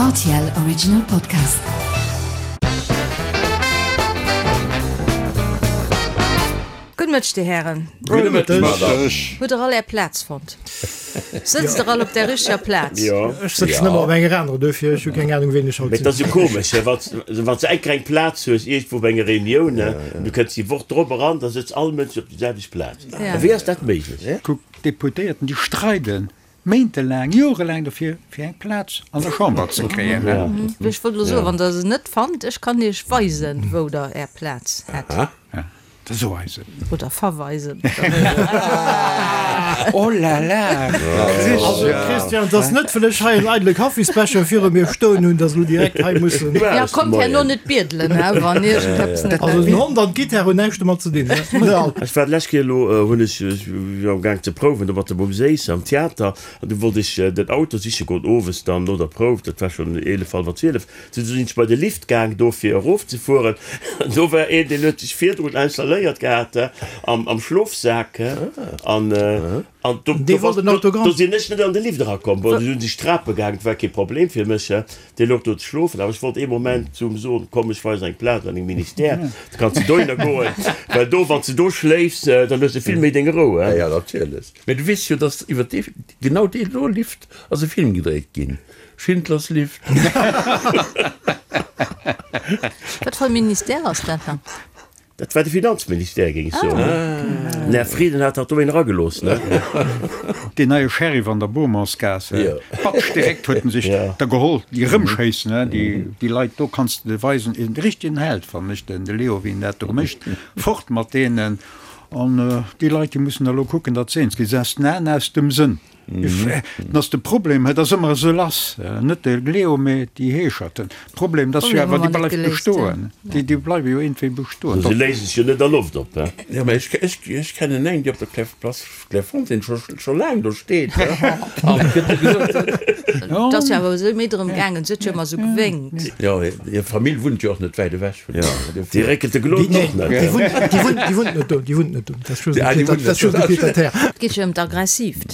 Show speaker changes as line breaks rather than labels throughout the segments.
Rtl Original Podcast.
Gudde Mëtteg, Dir Hären.
Gudde Mëtteg, Madame.
Hutt Der all Är Plaz fonnt? Sëtzt Der all op där richteger Plaz?
Jo.
Ech sëtzen ëmmer op enger anerer, duerfir ech hu keng Anung, ween ech haut
Mee
sinn.
et ass jo komesch, wann s de eng kleng Plaz hues iergendwou bei enger Reunioun, an du kënns déi Woch drop eran, da sëtzt all Mënsch op déi selwecht Plaz. Wéi ass dat méiglech?
Kuck, d'Deputéierten, déi streiden méintelaang, jorelaang dofir, fir eng Plaz an der Chamber ze kréien.
Ech wollt elo soen, wann Der se net fannt, ech kann Iech weisen, wou Der Är Plaz hätt.
Da so eis et.
Oder verweisen.
Oh la la,
Also Christian, et ass net, well ech hei en eidele Kaffisbecher viru mir stoen hunn, dass elo direkt hei mussen.
Ja, kommt herno net biedelen, he, wann iergendeppes net.
Also den Hond an d'Gitarre hunn näischt domat ze dinn, ne?
Ech war d'lescht Kéier elo, hunn ech, ech war am Gaang ze prouwen do mat der Bom Séiss am Theater an du wollt ech den Auto siche goen owes dann no der Prouf, dat war schonn 11, hallwer 12, du sinn ech bei de Lift gaang do fir erofzefueren an do war een, deen huet sech virdrun installéiert gehat am am Schlofsak an an do
Dee wollt en Autogramm.
do sinn ech net an de Lift erakomm. Bon, du sinn ech Trape gaang, dat war kee Problem fir mech. Dee louch do ze schlofen, awer ech wollt ee Moment zu em soen, Komm, ech weisen eng Plaz an dengem Ministère, da kanns de dohinner goen, well do, wann s de do schléifs, dann hues de vill méi deng Rou.
Ja, ja, natierlech. Mä du weess jo, dass iwwer dee, genau dee do Lift ass e Film gedréit ginn, Schindlers Lift.
Wat fir e Ministère ass dat dann?
Dat war de Finanzministère, géing ech soen. Den Här Frieden hat dat do een eragelooss, ne?
Deen neie Sheriff an der Beaumontsgaass, batsch, direkt huet en sech der geholl, déi erëmschéissen, déi Leit do, kanns de weisen, en richtegen Held, fannen ech, den Leo, wéi en dat do mécht, fort mat deenen. An déi Leit, déi mussen da lo kucken, datt se eens ginn, se aus den Aen, aus dem Sënn. Dat ass de Problem, et ass ëmmer esou lass, net de Leo, mä déi Heescherten. Problem, dat ass jo awer, déi bleift bestoen, déi bleiwe jo iergendwéi bestoen.
Se léise sech jo net a Loft op, he?
Jo, mä ech kennen eng, déi op der Place Clairefontaine scho laang do steet, an et gëtt gesot.
Et ass jo awer esou méi drëm gaangen, se huet jo ëmmer esou gewénkt.
Jo, hir Famill wunnt jo och net wäit ewech vun do.
Déi réckelt de Glot och net.
Déi wunnt net do, déi wunnt net do. Dat ass just e Pied à terre.
Et geet jo ëm d'Aggressiivt.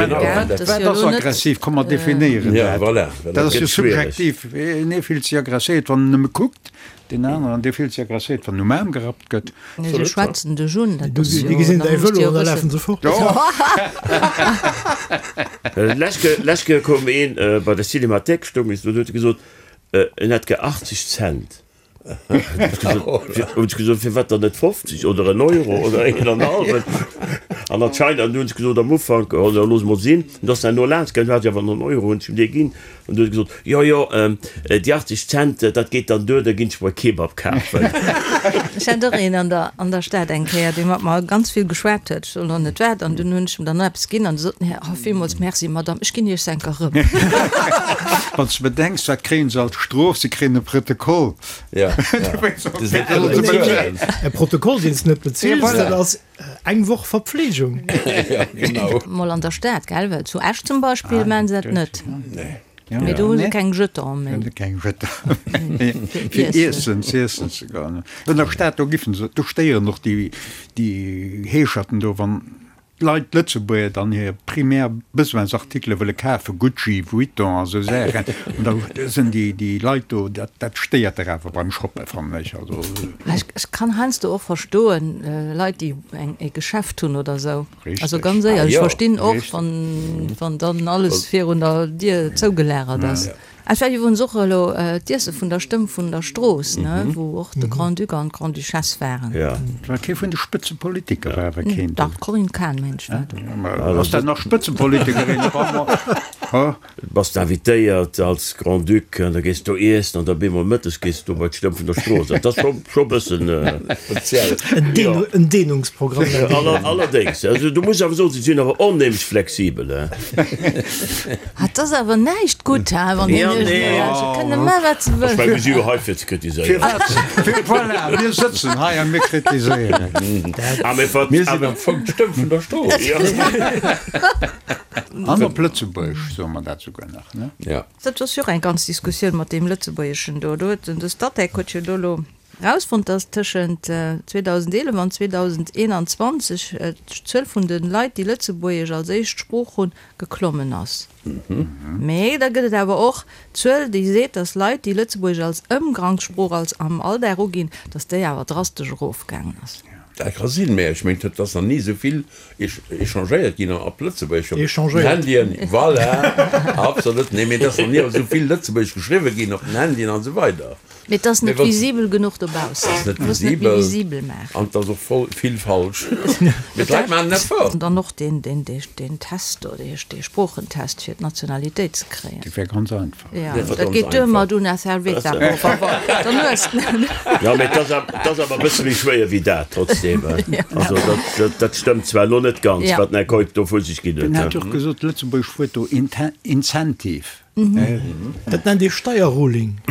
Wat ass aggressiv? Komm mer definéieren dat. Dat ass jo subjektiv. Een ee fillt sech aggresséiert, wann en nëmme kuckt, deen aneren, dee fillt sech aggresséiert, wann en um Aarm gerappt gëtt.
Se schwätzen dech un. Dat ass jo,
Déi gesinn
da
däi
muss
Vëlo
de jo
an da
wëssen.
lafen se fort.
Lescht Kéier koum een bei der Cinémathèque, stoung ech do, huet e gesot, en hätt gär 80 Cent. Hunn ech gesot, firwat dann net 50 oder en Euro oder een an hallwen? An anscheinend, an du hunn ech gesot am Ufank, oh jo, looss mol sinn. An du ass herno laanscht gaangen, du hat ech awer nach en Euro, hunn ech him dee ginn. An du huet e gesot, jo, jo, déi 80 Cent, dat geet dann duer, da ginn ech mer e Kebab kafen.
Ech hat och een an der, an der Stad eng Kéier, dee mat mer ganz vill geschwat huet, ech soen elo net wat, an dunn hunn ech em dann eppes ginn an du sot en, oh, villmools merci, Madame, ech ginn Iech s'enker erëm.
Wann s de bedenks, wat kréien se als Strof? Se kréien e Protokoll.
Ja,
E Protokoll, deen s de net bezils, dat ass eng Woch Verpflegung.
Ja, genau.
Mol an der Stad, gell? Well zu Esch zum Beispill maachen se dat net. Mee do hu se keng Jeton méi.
Keng Jeton méi. Fir iessen, z'iessen ze goen. An der Stad, do giffen se, do stéieren och déi Heescherten do, wann d'Leit, d'Lëtzebuerger dann hir primär Besoinsartikele wëlle kafen, Gucci, Vuitton a sou Saachen, an da sinn déi, déi Leit do, dat, dat stéiert dach awer beim Shoppen, fannen ech. Also.
Ech kann heiansdo och verstoen, Leit, déi eng, e Geschäft hunn oder sou.
Richtig.
Also ganz éierlech,
Ah jo.
ech verstinn och,
Richtig.
wann, wann dann alles virun der Dier zougelagert ass. Et war iwwerens och elo d'Iesse vun der Stëmm vun der Strooss, ne, wou och de Grand-Duc an d'Grande-Duchesse waren.
Ja.
Et war kee vun de Spëtzepolitiker, war awer keen do.
Dach, d'Corinne Cahen, mengt ech, war do.
Ass dat nach Spëtzepolitikerin? Ha?
Bass de invitéiert als Grand-Duc an da gees do iessen an da bemol mëttes gees du do bei d'Stëmm vun der Strooss. Dat ass scho scho bëssen
speziell.
En Dehn, en Dehnungsprogramm.
Allerdéngs, also du muss awer soen, se sinn awer onheemlech flexibel, he.
Ah, 't ass awer näischt gutt, he, wann
Ja,
een
nee.
Se kënne man, wat se
Ech
wëllen.
meng, mir si jo hei fir ze kritiséieren.
Firwat? Voilà, mir sëtzen hei a mir kritiséieren.
Ah, mee wat,
Mir sinn am Fong d'Stëmm vun der Strooss.
Ja.
An op Lëtzebuergesch soe mer dat souguer nach, ne?
Ja.
Dat ass jo och eng ganz Diskussioun mat deem Lëtzebuergeschen do. Do huet den, de Statec huet jo do elo. Erausfonnt, dass tëschent 2011 an 2021 d'Zuel vun de Leit, déi Lëtzebuergesch als éischt Sprooch hunn, geklommen ass. Mee da gëtt et awer och d'Zuel, déi seet, dass Leit, déi Lëtzebuergesch als Ëmgangssprooch, als am Alldag uginn, dass déi awer drastesch erofgaangen ass.
Dat ka sinn, mä ech mengen, et ass nach ni esou vill échangéiert ginn op Lëtzebuergesch op den Handyen. Voilà, absolut. Nee, mee et ass nach ni esou vill Lëtzebuergesch geschriwwe ginn op den Handyen an esou weider.
Mee et ass net visibel genuch dobaussen.
Et ass net visibel. Visibel maachen. An et ass och voll vill falsch. Mee d'Leit maachen en Effort.
An dann och deen, deen, deen Test do, dee, dee Sproochentest fir d'Nationalitéit ze kréien.
Dat wär ganz einfach.
Ja, dat geet duer mat una cerveza, por favor. Dann hues de en.
Jo, mee et ass awer, et ass awer e bësse méi schwéier wéi dat trotzdem. Also dat, dat stëmmt zwar elo net ganz, wat den Här Keup do vu sech ginn huet.
En hat jo och gesot, Lëtzebuerg huet do Incentive.
Dat nennt ee Steierruling.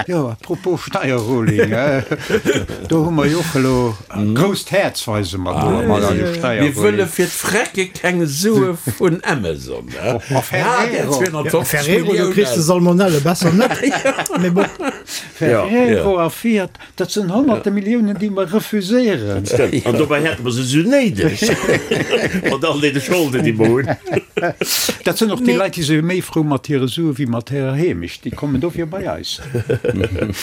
Jo, à propos Steierruling, do hu mer jo och elo grousst Häerz weise mer do mat eise Steierruling.
Mir wëlle fir d'Frecke keng Sue vun Amazon.
Ferrero,
Ferrero, do kriss de Salmonelle, besser net. Mee bon.
Ferrero a Fiat. Dat sinn honnerte Milliounen, déi mer refuséieren.
Dat stëmmt. An dobäi hätte mer se esou néideg, mat all deene Scholden, déi mer hunn.
Dat sinn och déi Leit, déi si méi frou mat hire Sue wéi mat hirer Heemecht. Déi kommen dofir bei eis.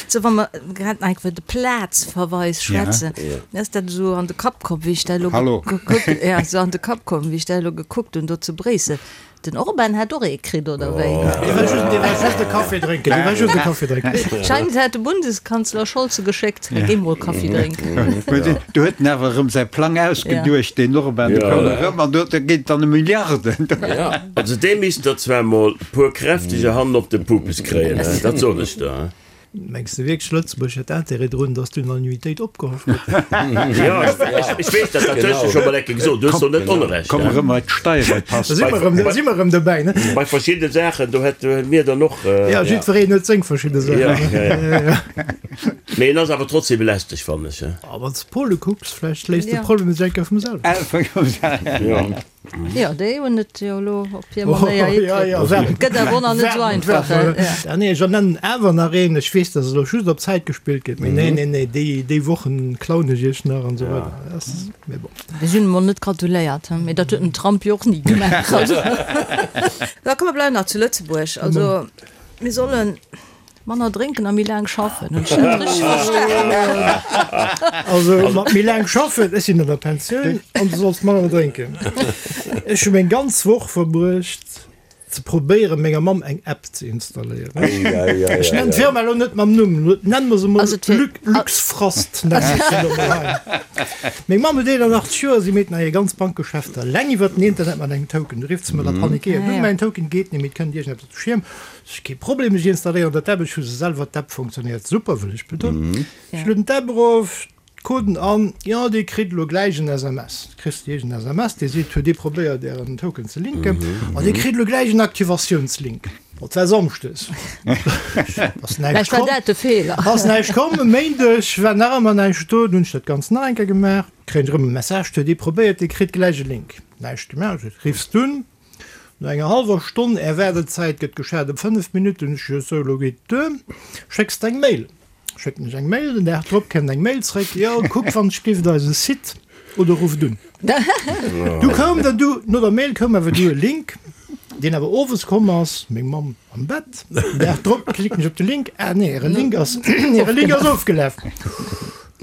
Sou, wa mer grad nach iwwer de Plazverweis schwätzen, mir ass dat esou an de Kapp komm, wéi ech dat elo gekuckt, ja, esou an de Kapp komm, wéi ech dat elo gekuckt hunn do zu Bréissel. Den Orban hätt och ee kritt, oder wéi?
Dee war just, dee war just e Café drénken, dee war just e Café drénken.
Scheint hätt de Bundeskanzler Scholz e geschéckt, Géi mol Kaffi drénken.
Do huet en awer erëm säi Plang ausgeduecht, deen Orban, do koum e rëm an do geet et dann ëm Milliarden.
Also dee misst der zwar mol puer kräfteger hannen op de Pupes kréien, dat soen ech der.
Mengs de wierklech, Lëtzebuerg hätt Intérêt drun, datt d'Unanimitéit opgehoff gëtt?
Jo, ech weess dat, dat hues de scho mol eng Kéier gesot, du hues do net Onrecht.
Komm erëm bei d'Steierepass.
Da si mer erëm, da si mer erëm dobäi, ne?
Bei verschiddene Saachen, do hätte mir dann och.
Jo, jiddwereen huet seng verschidde Saachen.
Jo, jo, jo. Mee en ass awer trotzdem lästeg, fannen ech.
A wann s de Pole kucks, vläicht léist de Problem sech eng Kéier vum selwen.
Jo.
Jo, déi hunn et jo elo op hir Manéier hikritt. Et gëtt awer och nach net esou einfach.
Ah nee, ech ernennen awer nach een. Ech weess, dass elo just op Zäit gespillt gëtt, mee nee, nee, nee, déi, déi Wochen klauen ech iech nach an esou weider. Ass, mee bon.
Mir sinn emol net gratuléiert, he, mee dat huet den Trump jo och ni gemaach. Also, da komm, mer bleiwen nach zu Lëtzebuerg. Also, mir sollen. Manner drénken a méi laang schaffen, hunn ech dat richteg verstanen?
Also mat méi laang schaffen, ech sinn an der Pensioun an du solls manner drénken. Ech hu meng ganz Woch verbruecht ze probéieren menger Mamm eng App ze installéieren. Ech nennen d'Firma elo net mam Numm, nennen mer se mol Luxfrost nennen ech se elo mol hei. Meng Mamm huet 81 Joer, si meet nach hir ganz Bankgeschäfter eleng iwwert den Internet mat engem Token. Du rifft se mer da panikéiert un, mäin Token geet net méi, et kënnt iergendeppes op de Schierm. Kee Problem, ech installéieren dat App, ech hu se selwer, d'App funktionéiert super, wëll ech betonen. Ech lueden d'App erof, d'Coden an, jo dir kritt elo gläich en SMS, kriss de iergend SMS, dee seet, huet dir probéiert ären Token ze linken an dir kritt elo gläich en Aktivatiounslink. Dat war Samschdes, ass näischt
Vläicht war dat de Feeler.
Ass näischt komm. E Méindeg war nach ëmmer näischt do, dunn hunn ech dat Ganzt nach eng Kéier gemaach, kréien ech erëm e Message, huet dir probéiert, dir kritt gläich e Link. Näischt gemaach, riffs dunn No enger hallwer Stonn, Är Waardezäit gëtt geschat ëm 5 Minutten, ech jo sou, elo geet et duer, schécks de eng Mail. Schécken ech eng Mail, den Dag drop kënnt eng Mail zréck, jo kuck wann ech giff eise Site oder rufft un. Du koum dann du, no der Mail koum awer du e Link, deen awer owes komm ass, meng Mamm am Bett, den Dag drop klicken ech op de Link, ah nee, äre Link ass, äre Link ass ofgelaf.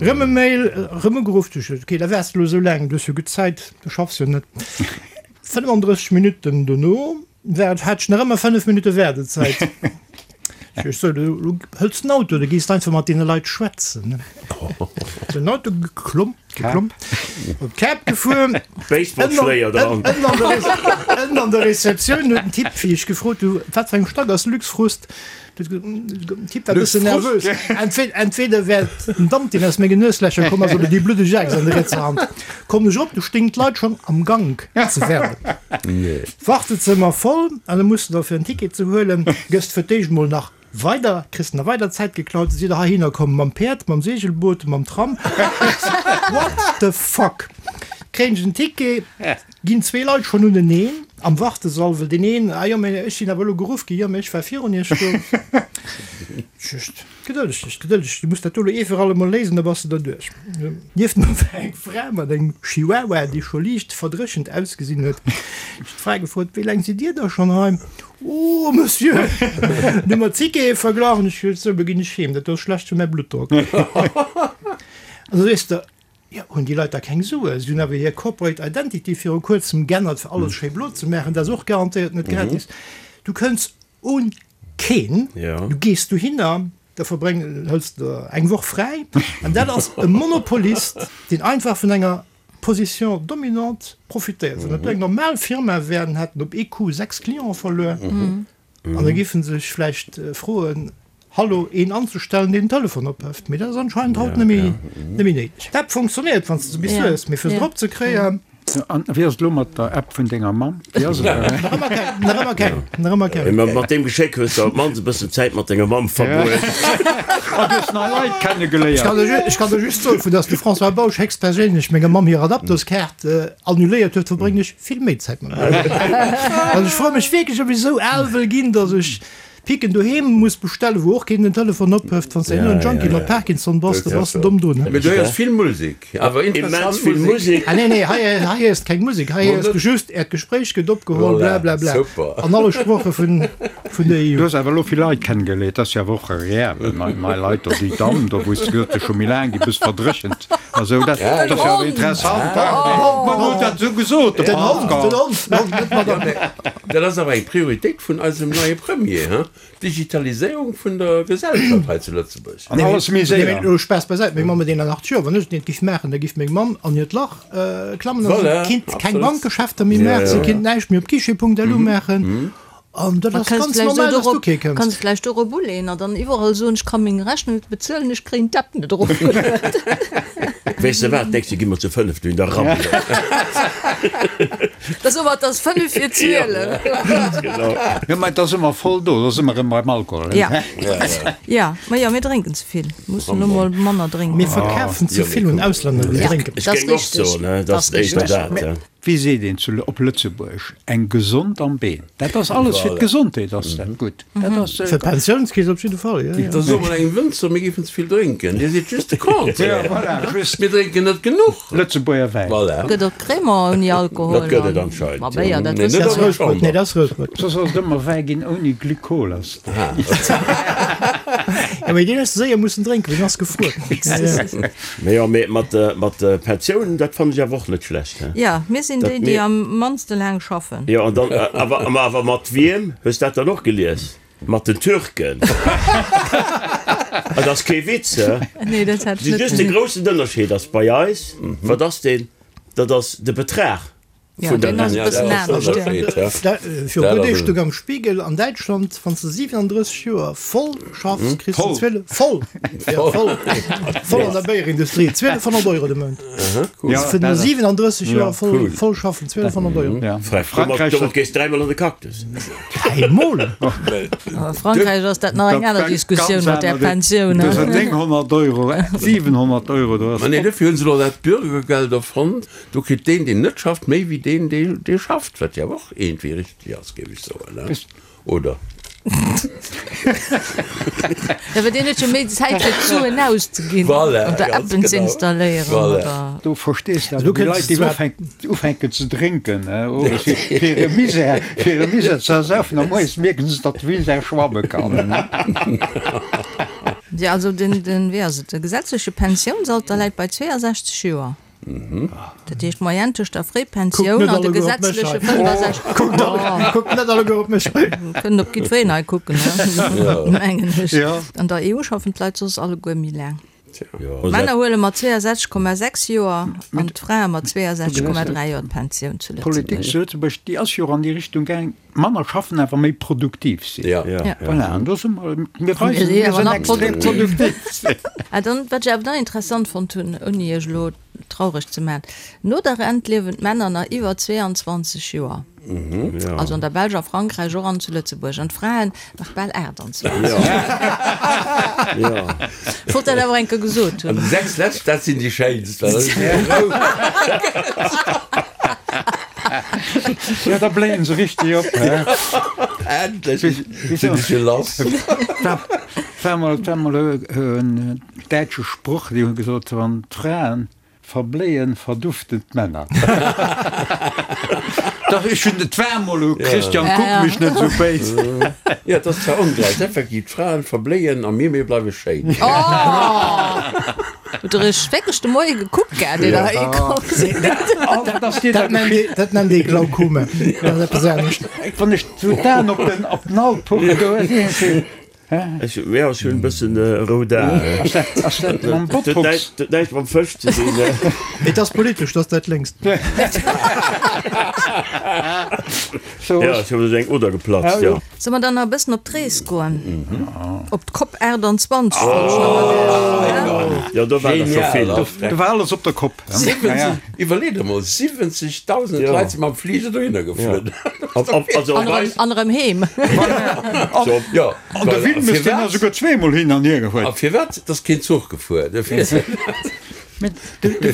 Rëm e Mail, rëm ugeruff, du, ok, da waars de elo sou laang, du hues jo gutt Zäit, du schaffs jo net. 35 Minutten dono war et, hat ech nach ëmmer 5 Minutte Waardezäit. Ech sou, du hëls den Auto, du gees einfach mat deene Leit schwätzen. Den Auto geklomm, geklomm, op d'Kap gefuer.
Baseballschléier dran.
Ënnen an der Rezeptioun huet den Typ, wéi ech gefrot hu, wat fir eng Stack ass Luxfrust, Den Typ war e bëssen nervös. Entweder wär et den Damp, deen aus menge Nueslächer komm ass, oder déi bluddeg Axt an der rietser Hand. Kommen ech erop, du stéing d'Leit schonn am Gank ze waarden. Wartezëmmer voll, an da muss de da fir en Ticket ze huelen, gëss de fir d'éischt mol nach weider, kriss nach weider Zäit geklaut. Sidd der heihinner komm mam Päerd, mam Segelboot, mam Tram? What the fuck? Kréien ech en Ticket? Ginn zwee Leit schonn uneneen am Wartesall, well deen een, ah jo, mä ech sinn awer elo geruff ginn, jo, mä ech war virun iech do. Just gedëlleg dech, gedëlleg dech, du muss dat do elo ee fir alle Mol léisen, da bass de derduerch. Nieft mer war eng Fra mat engem Chihuahua, dee scho liicht verdréchent ausgesinn huet. Ech hunn d'Fra gefrot, Wéi laang sidd Dir da schonn hei? Oh, Monsieur! Dann hu mer d'Tickete verglach an ech gesot, Sou, elo ginn ech heem, dat do ass schlecht fir mäi Bluttdrock. An da sees de, Jo, hunn déi Leit da keng Suen? Si hunn awer hir Corporate Identity viru kuerzem g'ännert, fir alles schéi blo ze maachen. Dat ass och garantéiert net gratis. Du kënns un keen, du gees dohinner, da verbréng, hëls der eng Woch fräi an dat ass e Monopolist, deen einfach vun enger Position dominante profitéiert. Wann dat do eng normal Firma wär, dann hätt en op ee Coup 6 Clienten verluer. An da géife se sech vläicht froen, Hallo, een anzestellen, deen den Telefon ophëft. Mee dat ass anscheinend haut net méi néideg. D'App funktionéiert, wann s de se bis hues, mee fir se drop ze kréien.
An wéi ass et elo mat der App vun denger Mamm? Wéi ass et?
Nach ëmmer keng, nach ëmmer keng, nach ëmmer keng.
Mee mat deem Geschéck hues de op d'mannst e bëssen Zäit mat denger Mamm verbruecht.
An du hues nei Leit kennegeléiert.
Ech kann der just soen, vu dass de François Bausch héchstperséinlech menger Mamm hir Adaptoskaart annuléiert huet, verbréngen ech vill méi Zäit mat mir. Also ech froe mech wierklech, ob ech esou al wëll ginn, datt ech Picken doheem muss bestellen, wou och keen den Telefon ophëft. Wann s de herno en Junkie mat Parkinson bass, da bass de domm drun.
Mee du héiers vill Musek, awer
interessant Musek.
Ah nee, nee, hei hei héiers de keng Musek, hei héiers de just, Äert Gespréich gëtt opgeholl, bla bla bla, an alle Sproche vun vun der EU.
Du hues awer elo vill Leit kennegeléiert, dat ass jo awer och agreabel, nei nei Leit do, déi Damm do, wou s de gesot hues, scho méi laang, déi bëss verdréchent. Also dat ass jo awer interessant. Ma huet dat esou gesot, de
Den Hond, den Hond, den Hond, net d'Madame.
Dat ass awer eng Prioritéit vun eisem neie Premier, hein? D'Digitaliséierung vun der Gesellschaft hei zu Lëtzebuerg.
An alles méi
séier. Nee, mee Spaass beisäit, meng Mamm huet 81 Joer, wann ech et net giff maachen, da giff meng Mamm an hiert Lach klammen a si kinnt keng Bankgeschäfter méi maachen, si kinnt näischt méi op guichet.lu maachen. An dat ass ganz normal, dass du kee kënns.
Kanns vläicht dorop uleeën an dann iwwerall soen, ech ka meng Rechnung net bezuelen, ech kréien d'App net erofgelueden.
Weess de wat, d'nächst Joer gi mer zu 5 dohin, da rabbele mer.
Da soe mer, et ass 5 vir 12.
Ganz genau.
Jo, mä da si mer voll do, da si mer erëm beim Alkohol.
Ja, ja, ma jo, mir drénken ze vill, mussen elo mol manner drénken.
Mir verkafen ze vill un Auslänner, déi drénken.
Ech géing och soen, dat ass éischter dat.
Wéi seet een zu op Lëtzebuerg, eng gesond am Been. Dat ass alles fir d'Gesondheet ass dat gutt. Dat ass.
Fir d'Pensiounskeess op jidde Fall, jo, jo.
Da soe mer engem Wënzer, mir géifen ze vill drénken. Dir sidd just de Contraire.
Ja, voilà, just.
Mir drénken net genuch.
Lëtzebuerger Wäin.
Voilà.
Gëtt och Crémant ouni Alkohol.
Dat gëtt et anscheinend,
jo. Ma Béier, dat
Mee
wësse
net
mer.
an der Chamber.
Nee, dat ass Routbrot.
Soss ass et ëmmer Wäi ginn ouni Glykol ass.
Jo, mee deen hues de séier mussen drénken, well deen ass gefruer.
Mee jo, mee mat mat de Pensiounen, dat fannen ech awer och net schlecht, he?
Jo, mir sinn déi, déi am mannste laang schaffen.
Jo, an dann awer, ma awer mat wiem? Hues dat dann och gelies? Mat den Türken. Et ass kee Witz, he?
Nee, dat hat ech net
Just de groussen Ënnerscheed ass bei eis, wat ass deen? Dat ass de Betrag.
Ja, deen ass e bëssen anescht, ja.
Viru puer Deeg stoung am Spiegel, an Däitschland, wann s de 37 Joer voll schaffs, kriss de 12, voll, ja voll, voll an der Béierindustrie, 1200 Euro de Mount. Fir no 37 Joer voll, voll schaffen, 1200 Euro.
Frankräich, domat gees dräimol an de Cactus.
Dräimol?
A Frankräich ass dat nach eng aner Diskussioun mat där Pensioun.
Dat ass 900 Euro, 700 Euro, do ass.
Ma nee, dofir hunn se elo dat Bürgergeld erfonnt. Do kritt deen, deen net schafft, méi wéi deen, dee schafft, wat jo awer och iergendwéi richteg ass, géif ech soen, ne? Oder?
Jo, well deen huet jo méi Zäit, fir d'Suen auszeginn
Voilà,
oder
ganz
Appen ze
genau.
installéieren
Voilà.
oder.
Do verstees de awer déi Leit, déi ufänken, ufänken ze drénken, ne, owes, fir hire Misär, fir hire Misär ze ersaufen, a moies mierken se, datt de Misär schwamme kann.
Jo, also den, den, wéi ass et, de gesetzleche Pensiounsalter läit bei 62 Joer. Dat heescht d'Moyenne tëscht der Fréipensioun an de gesetzleche 65.
Kuckt net alleguer op mech hei.
Kënnen op jiddwereen hei kucken, mengen ech. An der EU schaffen d'Leit soss alleguer méi laang. D'Männer huele mat 62,6 Joer an d'Frae mat 62,3 Joer d'Pensioun zu Lëtzebuerg.
D'Politik zu Lëtzebuerg, déi ass jo och an déi Richtung gaang, manner schaffen, awer méi produktiv sinn. Voilà, an do si mer, mir weisen, mir sinn extrem produktiv.
Ah, dann, wat ech awer nach interessant fonnt hunn, ouni iech elo traureg ze maachen, No der Rent liewen d'Männer nach iwwer 22 Joer, also an der Belsch, a Frankräich och an zu Lëtzebuerg, an d'Fraen nach bal 28. Ech wollt dat awer eng Kéier gesot hunn.
An déi 6 lescht, dat sinn déi schéinst, well da sinn se rou.
Jo, da bléien se richteg op, he?
Endlech sinn ech jo lass.
Et war mol, et war mol en däitsche Sproch, déi hu gesot, wann d'Fraen verbléien, verduften d'Männer. Dach, ech hunn, et war mol u, Christian, kuck mech net esou béis.
Jo, et ass zwar ongläich, effektiv, d'Fraen verbléien a mir, mir bleiwe schéin.
Hutt der iech wierklech de Moie gekuckt gehat, ier der heihi komm sidd?
Dat ass dir da
Dat nennt ee, dat nennt ee Glaukome. Dat ass eppes anescht.
Wann ech sou d'Aen op den, op den Alpuch do,
Ech, jo, ech hunn e bëssen rout Aen.
Ass dat, ass dat mam Botox?
Dat huet näischt mam Fësch ze dinn.
Et ass politesch, dat ass dat lénkst.
Jo, ech hunn eng Oder geplatzt, jo.
Solle mer dann nach e bëssen op d'Rees goen? Op d'Cop 28 wollt ech nach mat iech.
Jo, do war der scho vill.
Do war alles op der Kopp.
70, iwwerlee der mol, 70.000 Leit si mam Fliger dohinner geflunn.
An erëm heem.
Jo,
An de Wilmes, deen ass esouguer zweemol hin an hier gefuer.
A firwat? Et ass keen Zuch gefuer.
Mä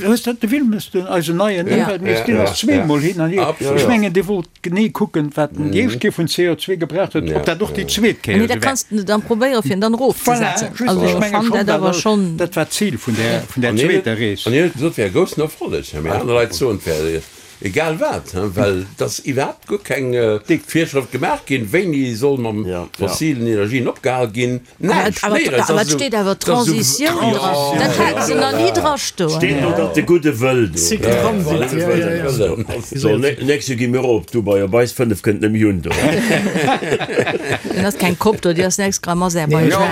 hues dat de Wilmes, den eisen neien Ëmweltminister, deen ass zweemol hin an hier. Ech mengen, dee wollt genee kucken, wat en déi éischt Kéier vun CO2 gebraucht huet, ob dat och déi zweet Kéier
esou war. Dat kanns de dann probéieren, fir en dann erofzesetzen.
Voilà, just, ech menge schonn, dat awer schonn. Dat war d'Zil vun där, vun där zweeter Rees.
An hien huet gesot, et wär e groussen Erfolleg. Mä aner Leit soen, et wär Egal wat, well et ass iwwerhaapt guer keng Virschrëft gemaach ginn, wéini soll mam fossilen Energien opgehal ginn. Näischt,
néierens. Awer et steet awer Transitioun dran, dat hate se nach ni dra stoen.
Steet do, datt de gudde Wëll do. So, nächst Joer gi mir och op Dubai, op eis 5 kënnt nëmme Jun do.
Dann ass keng Kopp do, déi ass nächst Gramm Aserbaidschan.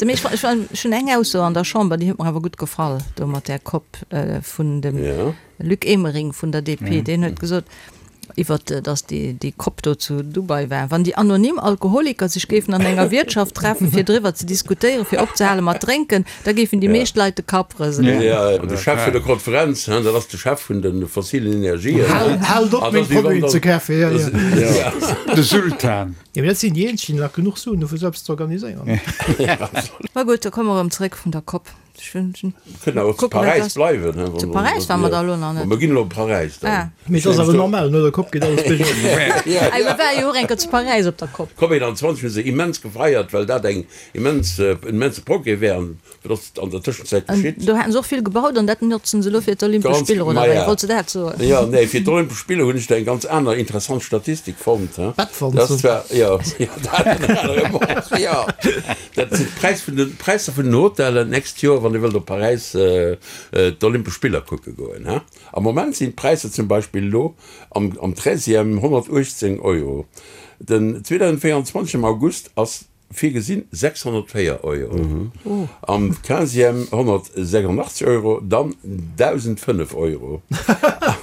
Mee ech hunn eng Ausso an der Chamber, déi huet mer awer gutt gefall, do mat där Kopp vun dem Luc Emering vun der DP, deen huet gesot, iwwert datt déi Cop do zu Dubai war, wann déi anonym Alkoholiker sech géifen an enger Wiertschaft treffen, fir driwwer ze diskutéieren, fir opzehale mat drénken, da géifen déi meescht Leit de Kapp rëselen.
Jo, de Chef vun der Konferenz, dat ass de Chef vun de fossilen Energien.
Haalt op, meng Produiten ze kafen, jo, jo.
De Sultan.
Jo, mee dat sinn déi eenzeg, déi nach genuch Suen hu fir esou eppes ze organiséieren.
Ma gutt, da komme mer erëm zeréck vun der Cop.
Kënnen awer zu Paräis bleiwen.
Zu Paräis ware mer da elo nach net.
Mer ginn elo op Paräis dann.
Mee et ass awer normal, no der Kopp geet alles biergop.
Ei, mer ware jo och eng Kéier zu Paräis op der Kopp.
D'Cop 21 hu se immens gefeiert, well dat eng immens, en immense Progrès wär. An wat ass an der Tëschenzäit geschitt?
Do haten se och vill gebaut an dat notzen se elo fir d'Olympesch Spiller, oder wéi? Wollts de dat soen?
Jo, nee, fir d'Olympesch Spiller hunn ech do eng ganz aner interessant Statistik fonnt.
Bettwanzen.
Dat war, jo, jo, dat ënner anerem och, jo. Dat sinn d'Präis vun den, d'Präisser vun den Hotellen d'nächst Joer, wann Dir wëllt op Paräis d'Olympesch Spiller kucke goen. Am Moment sinn d'Präisser zum Beispill elo am am Treizième 118 Euro. Den 2024 am August ass virgesinn 604 Euro, am Quinzième 186 Euro, dann 1.005 Euro.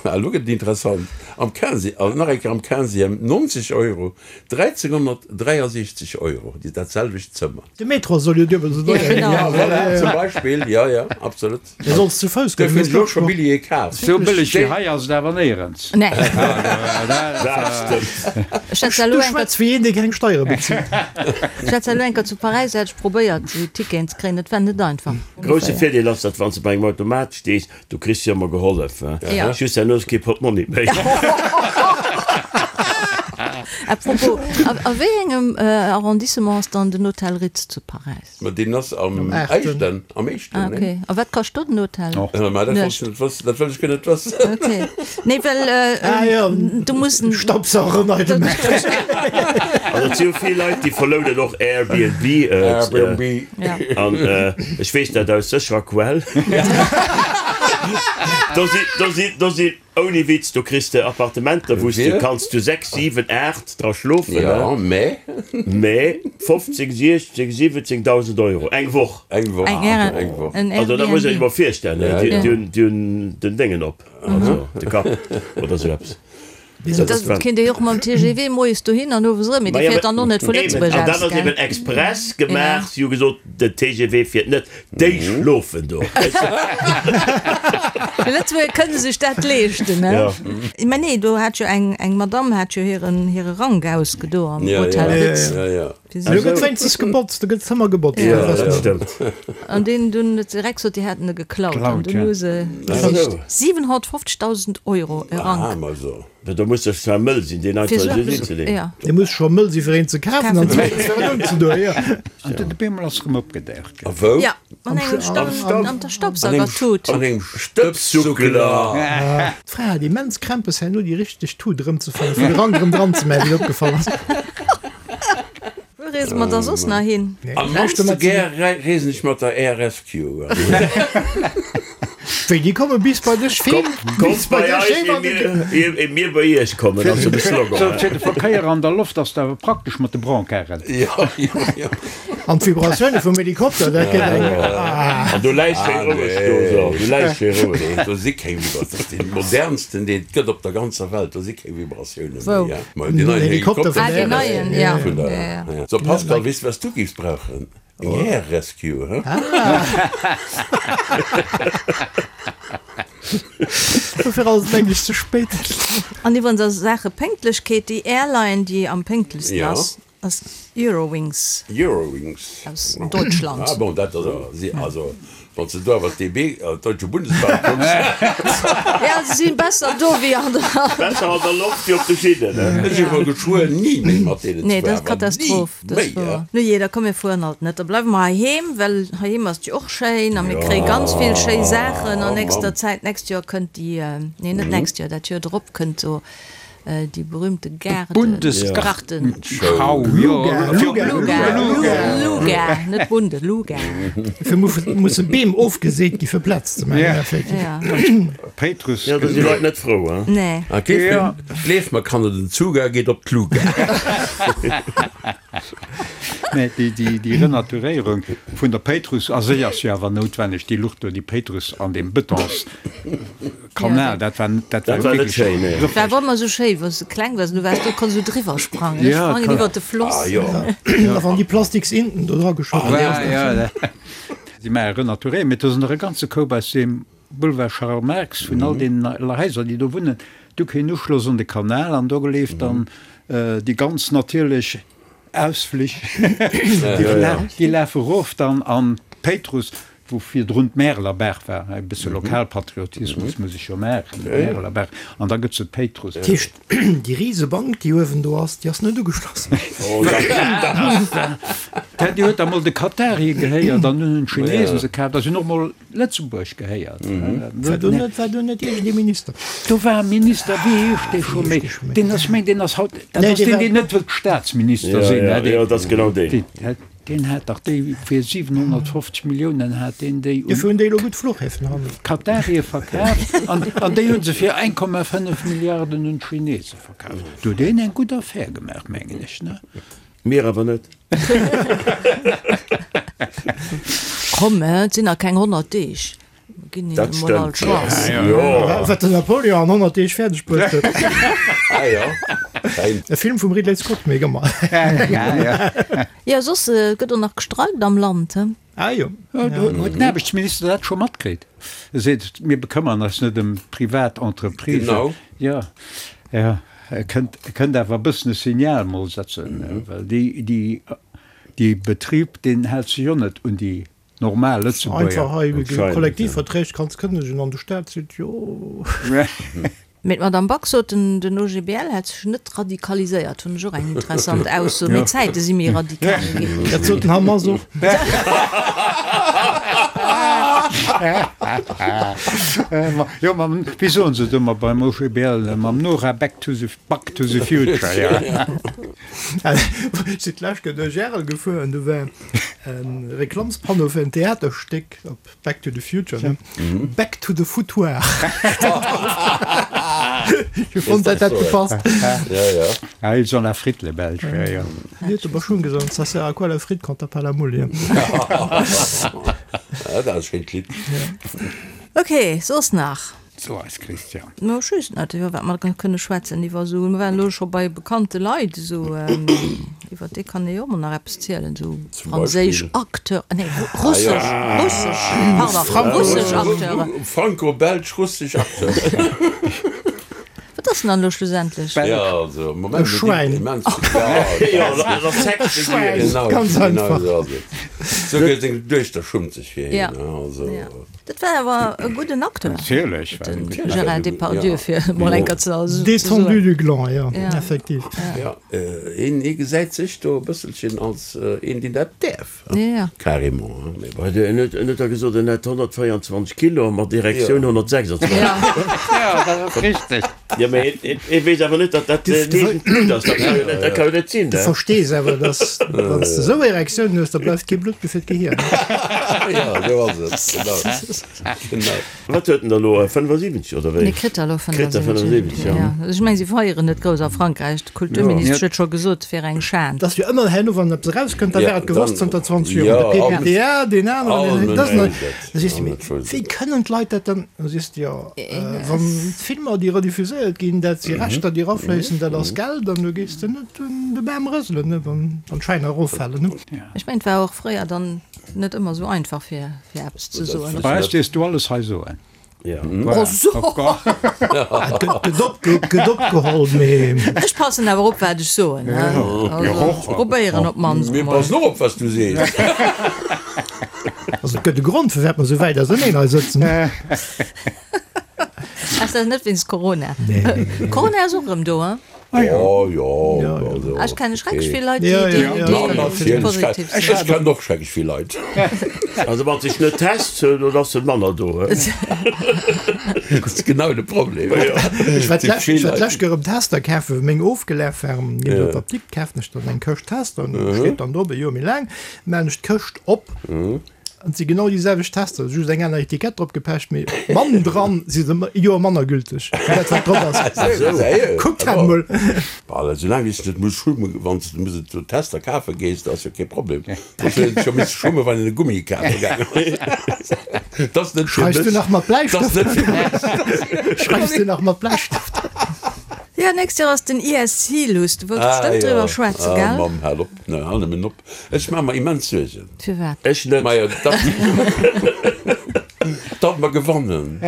A lo gëtt et interessant, am Quinzi, nach eng Kéier am Quinzième 90 Euro, 1363 Euro, déi dat selwecht Zëmmer.
De Metro soll jo duebel esou deier ginn.
Ja, voilà, zum Beispill, jo, jo, absolut.
Dir solls zu Fouss goen,
Dofir hunn ech elo scho Billjeeë kaf.
Sou bëlleg wéi hei ass et awer néierens.
Nee.
Dat stëmmt.
Ech hat elo
Du
eng
schwätz wéi een, dee keng Steiere bezilt.
Ech hat elo eng Kéier zu Paräis, hat ech probéiert, esou Ticketen ze kréien. Dat war net einfach.
Grousse Virdeel ass, datt wann s de bei engem Automat stees, Du kriss jo emmer gehollef,
Ja.
just herno ass kee Portmonni méi.
À propos, a, a wéi engem Arrondissement ass dann den Hotel Ritz zu Paräis?
Ma deen ass am
Am aachten.
éischten, am éischten,
Ah,
nee?
okay. A wat kascht do den Hotel?
Ma dat wollt ech
Nuecht.
net wëssen, dat wëll ech guer net wëssen.
Okay. Nee, well
Ah jo,
du muss en.
Staubsauger nei gemaach.
Also et si jo vill Leit, déi verlounen och Airbnb.
Airbnb.
Ja.
An ech weess dat aus sécherer Quell. Do si, do si, do si, ouni Witz, do kriss de Appartementer, wou s de kanns zu 6, 7, 8 dra schlofen,
Ja, mä.
mä 15, 16, 17.000 Euro eng Woch.
Eng Woch,
Eng Air,
eng Woch.
en
Also dat muss een sech
Airbnb.
mol virstellen,
Ja,
déi,
ja.
déi hunn, déi hunn den Déngen op, also de Kapp oder esou eppes.
Dat kéint ee jo och mam TGV moies dohin an owes erëm, mee dee fiert dann och net vu Lëtzebuerg
An dat
aus,
ass
gell?
eben express gemaach. Si hu gesot, den TGV fiert net, déi schlofen do.
Déi Lëtzebuerger kënne sech dat leeschten, ne? Mä nee, do hat jo eng, eng Madamm hat jo hiren, hire Rank ausgedo am Hotel Ritz.
Do gëtt wéinstens gebotzt, do gëtt d'Zëmmer gebotzt.
Jo, dat stëmmt.
An deen dunn huet direkt gesot, déi hätten e geklaut. An dunn hu se gesicht. 750.000 Euro e Rank.
Da muss ech zwar mëll sinn, deen einfach esou hinzeleeën.
Dee muss scho mëll si fir een ze kafen an zweetens fir en unzedoen, jo.
An den Beemol ass erëm opgedaucht.
A wou?
Jo, an engem Staub, an der Staubsaugertut.
An engem Stëbssuckeler.
D'Fra hat immens Krämpes herno déi richteg Tut erëmzefannen, fir de Rank erëm dran ze maachen, wéi et opgefall ass.
Wou reese mer da soss nach hin?
Am mannste gär reesen ech mat der Air Rescue.
Wéi, déi komme bis bei dech heem?
Kommt bei eis, ier mir bei iech kommen, ass jo de Slogan.
Sou, fir de Verkéier an der Loft ass et awer praktesch mat de Brancarden.
Jo, jo, jo.
An d'Vibratioune vum Helikopter, dat gëtt eng.
An do läis schéi roueg do, so, do läis schéi roueg.
Nee, do si keng Vibratioune. Dat ass dee modernsten, deen et gëtt op der ganzer Welt. Do si keng Vibratioune méi.
Wou?
Deen neien Helikopter
vun der. Ah, deen neien, ja.
Vun der, ja. So, Pascal, weess de, wat s du géifs brauchen? Eng Air Rescue, he?
Dofir ass et mengen ech ze spéit.
An iwwerens a Saache Pénktlechkeet, déi Airline, déi am pénktlechsten ass, Ass Eurowings.
Eurowings.
Aus Deutschland.
Ah bon, dat ass awer, si, also wann s de do awer d'DB, d'Deutsche Bundesbahn, kucks.
Ja, se si besser do wéi an der.
Besser an der Loft wéi op de Schinnen, ne?
Ech iwwer geschwuer ni méi mat deenen
Nee, dat ass Katastroph,
ni
dat ass
méi,
wouer. Nu jee, da komm mir fueren halt net, da bleiwe mer heiheem, well heiheem ass et jo och schéin a mir kréie ganz vill schéi Saachen an nächster Zäit. D'nächst Joer kënnt déi, nee net d'nächst Joer, dat Joer drop kënnt do Déi berühmte Gaarden.
Bundesgartenschau, jo.
Luga, Luga, net Bunde, Luga.
Dofir musse Beem ofgeseet gi fir Plaz ze maachen, effektiv.
Péitrus.
Jo, do si Leit net frou, hein?
Nee.
A gleef mer, Kanner, den Zuga geet op d'Luga.
Mä déi Renaturéierung vun der Péitruss a sech ass jo awer noutwenneg, déi Lucht do, déi Péitruss an deem Betonskanal, dat war, dat war
net schéin, nee.
Dat war ëmmer esou schéi, wann s de kleng waars, du waars do, konns esou driwwer sprangen, ech sprangen iwwer de Floss.
A wann déi plastiks Inten do dra geschott ginn.
Si maache Renaturéierung, mä do sinn der e ganze Koup aus deem Boulevard Charles Marx, vun all deenen Haiser, déi do wunnen, du keen Uschloss un de Kanal an do leeft dann déi ganz natierlech Ausflich, déi lafe erof dann an d'Péitruss, wou virdrun d'Märelerbaach war, e bësse Lokalpatriotismus muss ech jo maachen, d'Märelerbaach, an da gëtt se d'Péitruss.
Dat heescht, déi Risebank, déi uewen do ass, déi ass net ugeschloss?
Déi huet da mol de Katarië gehéiert an dunn hunn d'Chinesen se kaaft a se hunn och mol Lëtzebuerg gehéiert.
War do net, war do net iergendee Minister?
Do war e Minister, wéi heescht dee scho méi? Deen ass, meng, deen ass haut, dat ass deen, deen net wëllt Staatsminister sinn.
Jo, jo, dat ass genau deen.
Deen hat dach déi fir 750 Milliounen hat deen déi un.
Dofir hunn déi elo gutt Fluchhäfen hannen.
Katarie verkaaft an, an déi hu se fir 1,5 Milliarden un d'Chinese verkaaft. Do huet een eng gutt Affär gemaach, mengen ech, ne?
Mir awer net.
Komm, et sinn nach keng 100 Deeg. Mir ginn
Dat
hinnen emol all
stëmmt.
d'Chance.
Jo.
Wat den Napoleon an 100 Deeg fäerdeg bruecht huet.
Ah jo, fein.
E Film vum Ridley Scott, mee gëmmer.
Jo, soss gëtt och nach gestreikt am Land, he?
Ah jo.
Huet den Aarbechtsminister dat scho matkritt? E seet, mir bekëmmern eis net ëm privat Entreprisen.
Genau.
Jo, jo. E kënnt, e kënnt awer e bëssen e Signal mol setzen, well déi, déi, dee Betrib, deen hält sech jo net un déi normal Lëtzebuerger.
Einfach hei Kollektivverträg kanns kënnegen an de Staat seet jo.
Mee d'Madame Back sot, den OGBL hätt sech net radikaliséiert. Hunn ech och eng interessant Ausso. Mee d'Zäite si méi radikal ginn.
Dat sot den Hamas och.
Jo, mam, wéi soen se et ëmmer beim OGBL, mam Nora Back to the, Back to the Future, jo.
Ech sinn d'lescht Kéier duerch Arel gefuer an do war e Reklamspanneau fir en Theaterstéck op Back to the Future, ne? Back to the Foutoir. Ech fonnt, dat hätt gepasst.
Ja, ja.
Ah, ils ont la frite, les Belges, ja, ja.
Mir huet aber schon gesot, ça sert à quoi la frite quand t'as pas la moule, ja.
Ah, dat ass e schéint Lidd.
Ok, soss nach?
So eis Christian.
No ech weess net iwwer wat mer kënne schwätzen iwwer esou, mer waren elo scho bei bekannte Leit esou, iwwer déi kann ee jo och mol nach eppes zielen, esou franséisch Acteur, nee russesch, russesch, pardon, russesch Acteuren.
Franco-belsch-russesch Acteuren.
Wat ass denn dann elo schlussendlech?
Jo, also am Moment
E Schwäin.
immens vill, jo,
Jo, dat ass Sex
Schwäin,
genau,
ganz
genau
einfach.
esou ass et. Souguer seng Duechter schummt sech fir hien. Also.
Dat war awer e gudden Acteur.
Natierlech
war en gudden Gérard Depardieu, fir emol eng Kéier ze soen.
Détendu du gland, jo, effektiv.
Jo, hien gesäit sech do e bësselchen als een, deen dat däerf.
Ja.
Carrément, hein, mais bon.
En huet, en huet da gesot, en hätt 124 Kilo a mat Erektioun 126.
Ja, dat ass richteg.
Jo, mä hien, hien weess awer net, datt dat eegent Blutt ass. Dat ka jo net, dat ka jo net sinn,
Du verstees awer, datt wann s de esou Erektioun hues, da bleift kee Blutt méi fir d'Gehier.
Jo, esou ass et, genau. Genau.
Wat huet en da elo, 75 oder wéi?
Nee, kritt er elo
Kritt er
75,
75, ja.
Ja. Ech mengen, si feieren net grouss a Frankräich. D'Kulturministesch huet scho gesot, et wier eng Schan.
Et ass jo ëmmer herno, wann eppes erauskënnt, da
Ja,
war et gewosst
dann,
zënter 20 Joer.
ja,
De
all
PPTA, deen aneren,
all
deen,
Mënsch
dat
wouss et.
Da sees de,
All
mee
Mënsch wouss
wéi
et.
kënnen d'Leit dat dann? Da sees de, jo, wann d'Filmer, déi rediffuséiert ginn, dat si Rechter, déi erafléissen, dat ass Geld an du gees de net un de Bam rëselen, ne, wann d'Schwäiner eroffalen, ne.
Ech mengen, et war och fréier dann net ëmmer esou einfach, fir fir eppes ze soen.
Bei eis dierfs du alles hei soen.
Ja.
Oh so!
Gëtt op, gëtt opgeholl, mee.
Ech passen awer op, wat ech soen, he. Also, ech probéieren op d'mannst
Mir
emol.
passen och op, wat s du sees.
Also, et gëtt e Grond, firwat mer esou wäit auserneen hei sëtzen.
Ass dat net wéinst Corona?
Nee.
Corona ass och erëm do, he?
Ah jo.
Oh jo, also
Ech kenne schrecklech
okay.
vill Leit,
Ja,
déi,
ja,
déi,
ja.
déi
Natierlech,
positiv
ech
sinn.
kennen och schrecklech vill Leit.
Also wann sech net test, dann ass en manner do.
Dat ass genau de Problem.
Ech war
Et si
d'lescht
vill
ech war
Leit.
d'lescht Kéier erëm Tester kafen, wou meng ofgelaf waren. Ginn ech an d'Apdikt, kafen ech dann eng Këscht Tester, an do steet dann drop e Joer méi laang, maachen ech d'Këscht op, An et si genau déi selwecht Tester, just eng aner Etikett drop gepecht, mee bannendran si se e Joer manner gülteg wéi dat wat drop ass. Kuckt dat emol!
Bah, soulaang wéi s de net muss schummen, wann s de muss et Tester kafe gees, dat ass jo kee Problem. Soss huet een scho misse schummen, wann een e Gummi kafe gaangen ass. Dat ass net fir
Schreifs du
mech.
nach mat
Dat ass
Bläistëft?
net fir mech.
Schreifs du nach mat Bläistëft?
Jo, nächst Joer ass den ESC, Luss, du wolls
Ah
bestëmmt
jo,
driwwer schwätzen,
ah
gell?
Mamm, hal op, hal nëmmen op. Ech maache mer immens Suergen.
Firwat?
Ech net.
Majo, datt, datt mer gewannen.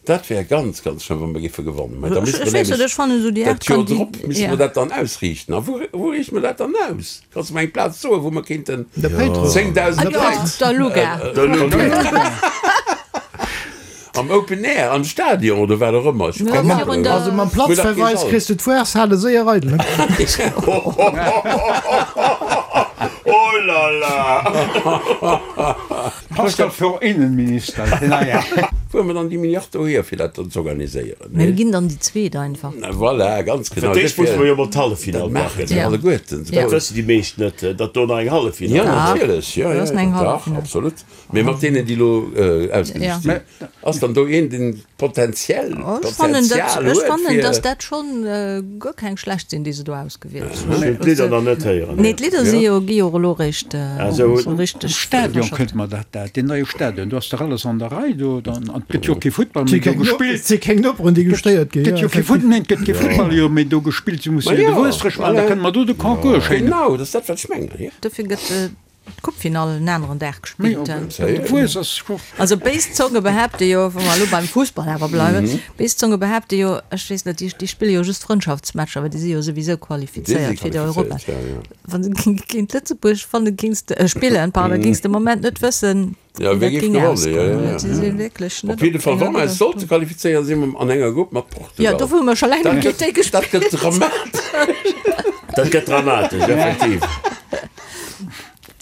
Dat wär ganz, ganz schlëmm, wa mer géife gewannen. Mä da
Ech
misste mer
weess net,
nämlech
ech fannen esou déi
dat
Aart
Joer
Kandi
drop misste
ja.
mer dat dann ausriichten. A wou, wou riichte mer dat dann aus? Kanns de mer eng Plaz soen, wou mer kéinten
De Péitruss.
10.000
Ah jo,
Leit
der Luga.
Der Luga.
Am Open Air, am Stadion oder wat och ëmmer. Ech hu
Ja,
keng
virun
Ahnung.
der-
Also mam
Wou dat
Platzverweis
geet
kriss du d'Foireshale séier eidel, ne?
Oh la la!
Pascal für Innenminister, den neien.
Wou hu mer dann déi Milliard dohier, fir dat dann z'organiséieren?
Mir ginn dann déi zweet einfach.
Voilà, ganz
Fir
genau.
d'éischt musse mer jo mol
Dat
d'Halleffinall
maachen
maachen.
se
Ja.
alleguerten.
Ja.
Dat wëssen déi meescht net, datt do nach eng Halleffinall
Ja,
ass.
natierlech. Ja,
Do
ja,
ass nach eng
dach,
Halleffinall.
absolut. Mee mat deenen, déi elo ausgesicht sinn, ass dann do een, deen potenziell
Ech fannen, dat,
Potenzial
ech
huet
fannen,
fir.
dass dat schonn guer keng schlecht sinn, déi se do ausgewielt hunn.
Ech hunn d'Lidder nach net héieren.
Nee, d'Lidder si jo, gi jo och elo réischt
esou
esou richteg
Am Stadion
verschafft.
kënnt mer dat, dat, deen neie Stadion, do ass dach alles an der Rei do, dann, an et gëtt jo och kee Futtball méi do gespillt.
Et si keng Noperen, déi gestéiert ginn.
Gëtt jo kee Futt, neen, et gëtt kee Futtball jo méi do gespillt, se musse jo de
Ma jo,
Wuestrech maachen, da
voilà.
kënne mer do de Concours schéin.
Genau, dat ass dat, wat ech mengen, jo.
Dofir gëtt D'Coupefinall en aneren Dag gespillt. Also béis Zonge behaapte jo, wa mer elo beim Fussball awer bleiwen, béis Zonge behaapte jo, ech weess net, déi spille jo just Frëndschaftsmatcher, well déi si jo souwisou qualifizéiert fir d'Europa. Wa se géint Lëtzebuerg fanne géings de, spillen, pardon, géings de Moment net wëssen,
wéi
wéi dat
géif
géing
gewannen.
ausgoen. Si si wierklech net
Op jidde
op
Fall, wa
enger
mer eis sollte qualifizéieren, si mer an enger Grupp mat Portugal.
Jo, do hu mer scho laang net géint déi gespillt.
Dat gëtt dramatesch.
Dat gëtt dramatesch, effektiv.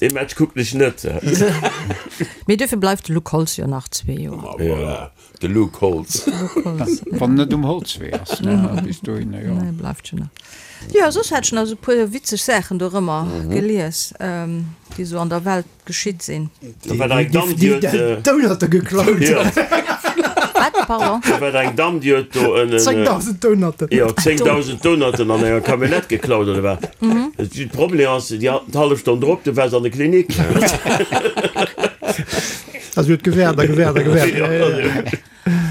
Dee Match kucken ech net.
Mee duerfir bleift de Luc Holtz jo nach zwee Joer.
Ma voilà, de Luc Holtz.
Wann en net um Holzwee ass, ne, bis dohinner, jo.
Nee, bleift jo nach. Jo, soss hat ech nach esou e puer witzeg Saachen dorëmmer gelies, déi esou an der Welt geschitt sinn.
Da war eng Damm, déi huet.
Donutte geklaut.
Wat? Pardon?
Da war eng Damm, déi huet do en.
10.000 Donutten.
Jo, 10.000 Donutten an enger Camionnette geklaut, oder wat? De Problem ass, déi hat d'hallef Stonn drop, du war se an der Klinik.
Also huet gewäert a gewäert a gewäert.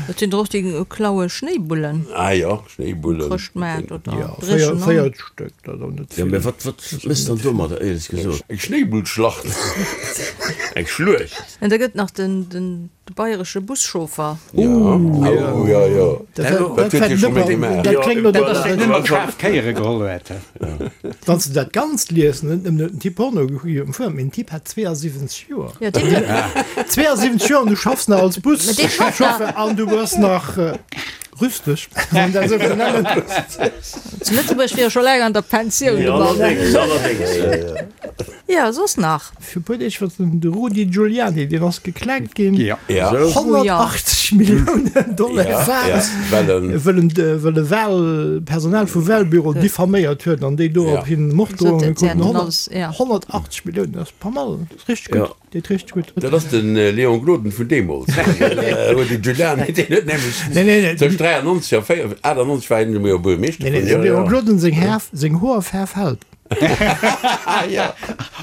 Et sinn der och déi klaue Schnéibullen.
Ah jo, Schnéibullen.
Chrëschtmaart oder
Jo,
Dréchen.
4 Stéck, dat ass och net
Jo,
vill.
mä wat, wat méchs dann domadder, éierlech gesot?
Eng Schnéibullschlacht.
Eng Schluecht.
An da gëtt nach den, den bayeresche Buschauffer.
Jo, oh jo, jo. Dat huet hie scho méi gemaach.
Dat kléngt no
Dat ass deen, deen schaarf Kéiere geholl huet.
Wann s de dat Ganzt liest, net nëmmen huet den Typ Porno gekuckt, mee den Typ hat 72 Joer.
Jo, deen huet.
72 Joer an du schaffs nach als Buschauffer an du bass nach rüsteg, wann een dat esou kann nennen.
Zu Lëtzebuerg wier e scho laang an der Pensioun, de
Jo,
Mann.
allerdéngs, allerdéngs.
Jo, soss nach?
Fir e puer Deeg war den Rudy Giuliani, deen ass geklenkt ginn.
Ja.
180 Milliounen Dollar waart, wëll en wëll e Wahl Personal vu Wahlbüroen diffaméiert huet an déi dorop hin Morddrohunge kruten. 180 Milliounen, dat ass pas mal, dat ass richteg gutt, deet richteg gutt.
Dat ass de Léon Gloden vun deemools, Rudy Giuliani, deen huet nämlech tëscht 93 a 98 war hien jo Buergermeeschter vun.
Nee, nee, dem Léon Gloden seng Hoerfaarf hält.
Ja.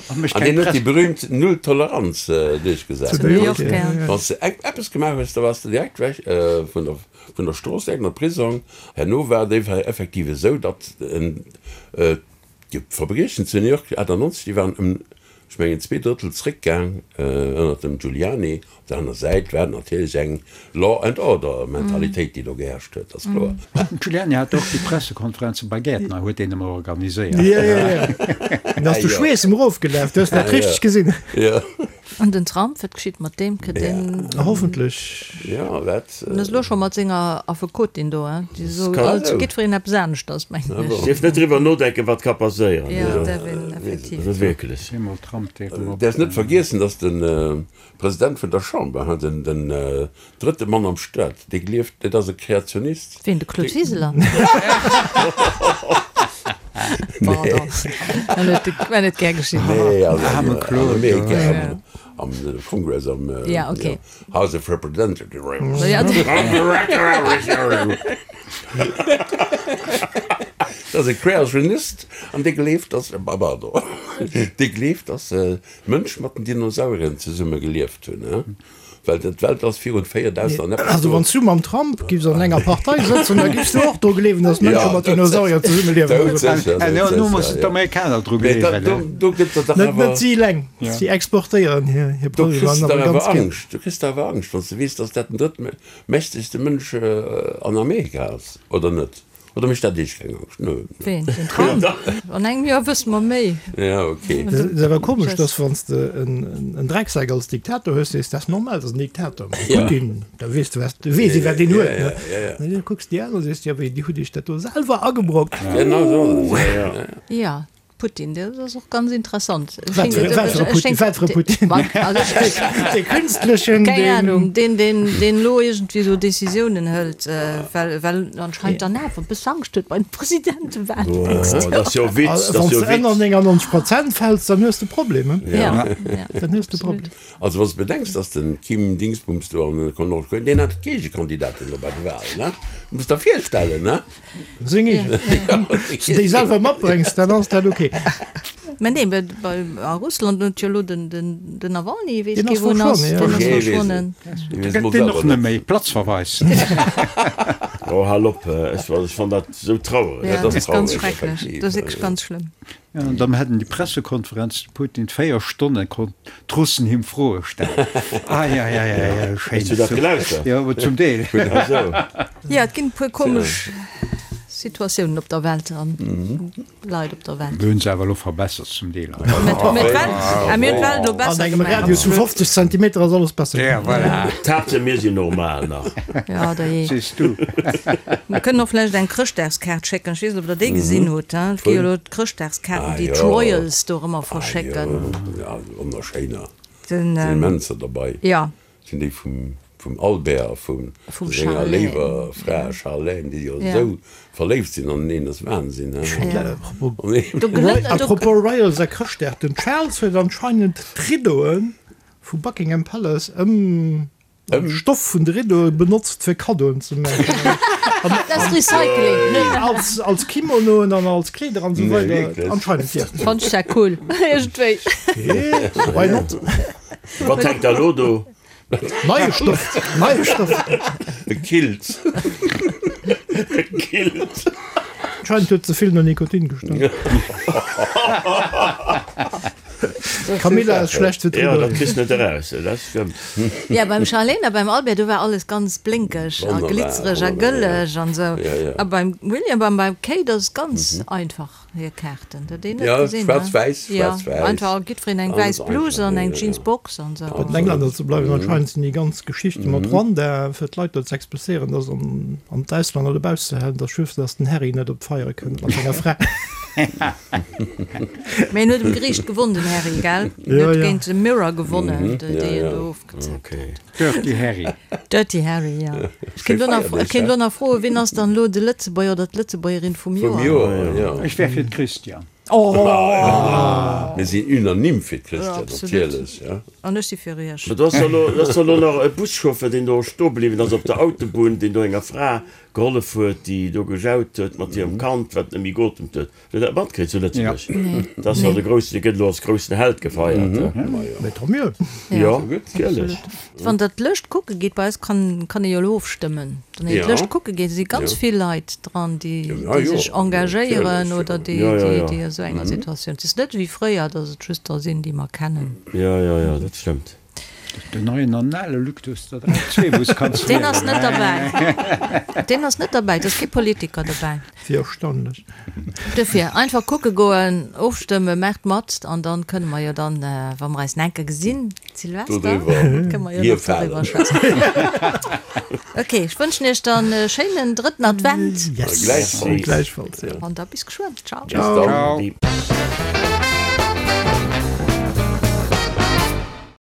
An deen huet déi berühmt Null-Toleranz duerchgesat. Wann s de eppes gemaach hues, da waars de direkt weg vun der, vun der Strooss, direkt an de Prisong. Herno war et effektiv esou, datt d'Verbriechen zu New York 98, déi waren ëm, ech mengen, zweedrëttel zréckgaang ënnert dem Giuliani. Op der aner Säit war et natierlech eng Law and Order Mentalitéit, déi do geherrscht huet, ass kloer.
Den Giuliani hat och déi Pressekonferenze bei Gäertner huet deen ëmmer organiséiert.
Jo, jo, jo. Dann ass de Schweess em erofgelaf, du hues dat richteg gesinn.
Jo.
An den Trump, wat geschitt mat deem? Kritt deen.
Hoffentlech.
Jo, wat.
En ass elo scho mat senger Affekotin do, hein? Déi soe alt jiddwereen eppes aneschters, mengen ech.
Dierf net driwwer nodenken, wat ka passéieren.
Jo, dat däerf een effektiv.
Also wierklech.
Eemol Trump, dee rëm op.
Däerfs net vergiessen, datt den President vun der Chamber, den drëtte Mann am Staat, dee gleeft, dat ass e Kreationist.
Ween, de Claude Wiseler? Pardon, war net gär geschitt.
Nee, also an Amerika, am Congress, am House of Representatives. Dat ass e Kreationist an dee gleeft, dass, pardon, dee gleeft, dass Mënsch mat den Dinosaurieren zesumme gelieft hunn, he? Well d'Welt ass virun 4000 an eppes
Also wann s du mam Trump giffs an enger Partei sëtzen, da giffs du och dru gleewen, datt Mënsche mat Dinosaurier zesumme liewen.
Elo mussen d'Amerikaner dru gleewen.
Do gëtt der dach
Net
awer.
net si eleng, si exportéieren hir hir
Do kriss
Problemer
de
awer
awer
ganz gär.
Angscht, do kriss de awer Angscht, wann s de weess, datt dat den drëttmächtegste Mënsch an Amerika ass, oder net? Oder mécht dat Iech keng Angscht? Nö.
Ween? Den Trump? An engem Joer wësse mer méi.
Ja, ok.
Et ass awer komesch, dass wann s de en Drecksack als Diktator hues, sees, dat ass normal, dat ass en Diktator. Mee Putin, da weess de, wat, weess ee wat deen huet, ne? An da kucks de déi aner, sees de, jo, wéi, déi hutt Iech dat do selwer agebrockt.
Genau esou ass et, jo, jo.
Ja. Putin, dat ass och ganz interessant.
Wat fir e Putin? Wat fir e Putin? Dee künstlechen?
Keng Ahnung, deen, deen, deen elo iergendwéi esou Decisiounen hëlt, well, well anscheinend dann awer e bësse Angscht huet bei den Presidentewahlen d'nächst Joer.
Dat ass jo e Witz, dat
Wann
ass jo
s
e
de ënner
Witz.
99 Prozent fäls, dann hues de e Problem, he?
Ja, ja.
Dann hues de e Problem.
Also wann s de bedenks, datt den Kim Dingsbums do an Nordkorea, deen hat d'Gegekandidatin do bei de Wahlen, ne? Muss der virstellen, ne?
Seng eegen. Wann s de déi selwer matbréngs, dann ass dat ok.
Mä nee, mä bei a Russland huet jo elo den den den Nawalny, weess
Deen
kee
ass
wou en ass,
verschwonnen,
deen
jo.
ass verschwonnen.
Da gëtt deen och net méi. Platzverweis.
Oh, hal op, ech fann dat esou trauereg.
Ja, dat ass ganz schrecklech, dat ass wierklech ganz schlëmm.
Ja, an dann hätten déi Pressekonferenz, de Putin 4 Stonnen konnt d'Russen him Froe stellen. Eieieiei, schéin.
Hues du dat gelauschtert?
Jo, zum Deel.
Jo, et ginn e puer komesch Situatiounen op der Welt an Leit op der Welt.
Mir hunn se awer elo verbessert zum Deel.
Mir hunn d'Welt elo besser
An engem
gemaach.
Radius vu 50 Zentimeter ass alles besser
Ja,
ginn.
voilà.
D'Haaptsaach mir sinn normal nach.
Ja, da jee.
Sees du.
Mir kënnen och vläicht eng Chrëschtdagskaart schécken. Ech weess net, ob der déi gesinn hutt. Et gi jo elo d'Chrëschtdagskaarten, déi d'Royals do erëm verschécken.
Ah jo, wonnerschéiner. Sinn immenser derbei.
Jo.
Sinn déi vum vum Albert a vum senger léiwer Fra Charlène, déi jo esou verléift sinn aneneen, ass Wahnsinn, he?
Apropos Royals a Chrëschtdag, den Charles huet anscheinend d'Riddoe vu Buckingham Palace ëm den Stoff vun de Riddoe benotzt fir Kaddoen ze maachen.
Dat ass Recycling.
Als als Kimonoen an als Kleeder an esou weider. Anscheinend jo.
Fannt ech dat cool iergendwéi.
Why not?
Wat hänkt da lo do?
Neie Stoff, neie Stoff.
E Kilt.
E Kilt.
Anscheinend huet ze vill no Nikotin gestonk. Camilla ass schlecht fir
d'Riddoen. Jo, dat kriss net eraus, dat stëmmt.
Ja, beim Charlene a beim Albert, do war alles ganz blénkeg a glitzereg a gëlleg an esou. A beim William a beim Kate ass et ganz einfach, hir Kaarten. Dat een net gesinn, ne?
Schwaarz-wäiss, schwaarz-wäiss.
Jo, einfach jiddwereen eng wäiss Bluse an eng Jeansbox an esou.
Bei den Englänner ze bleiwen, anscheinend sinn déi ganz Geschichte mat Rwanda, fir d'Leit do ze expulséieren, dass an an d'Auslänner dobausse ze halen, dass just, dass den Harry net op d'Feiere kënnt mat senger Fra.
Mee en huet um Geriicht gewonn, den Harry, gell? En huet géint de Mirror gewonnen, déi en do ofgezeckt huet.
Dirty Harry.
Dirty Harry, jo. Ech kéint elo nach, ech kéint elo nach froen, wien ass dann elo de Lëtzebuerger oder d'Lëtzebuergerin vum
Vum
Joer?
Joer, jo.
Ech wär fir d'Christiane.
Oh!
Mir sinn unanime fir d'Christiane,
Absolut.
natierlech, ja.
An ech si fir Iech.
Mä do ass jo elo, do ass jo elo nach e Buschauffeur, deen do stoe bliwwen ass op der Autobunn, deen do enger Fra gehollef huet, déi do gejaut huet mat hirem Kand, wat net méi geotemt huet. Hutt Der dat matkritt zu Lëtzebuerg? Dat ass jo de groussen, dee gëtt elo als groussen Held gefeiert.
Mais tant mieux!
Jo, natierlech.
Wann Der d'Lëscht kucke gitt, bei eis kann kann ee jo elo ofstëmmen, wann een d'Lëscht kucke geet, si ganz vill Leit dran, déi déi sech engagéieren oder déi déi a sou enger Situatioun. Et ass net wéi fréier, datt et just der sinn, déi mer kennen.
Jo, jo, jo, dat stëmmt.
Den neien anale Luctus, der 3 wou s kanns
Deen ass net derbäi. Deen ass net derbäi, et ass kee Politiker derbäi.
Wéi erstaunlech.
Duerfir, einfach kucke goen, ofstëmmen, maacht mat an dann kënne mer jo dann, wa mer eis nach eng Kéier gesinn, Silvester, kënne mer jo nach doriwwer schwätzen. Ok, ech wënschen iech dann e schéinen drëtten Advent.
Yes, gläichfalls.
An da bis geschwënn. Ciao.
Bis dann.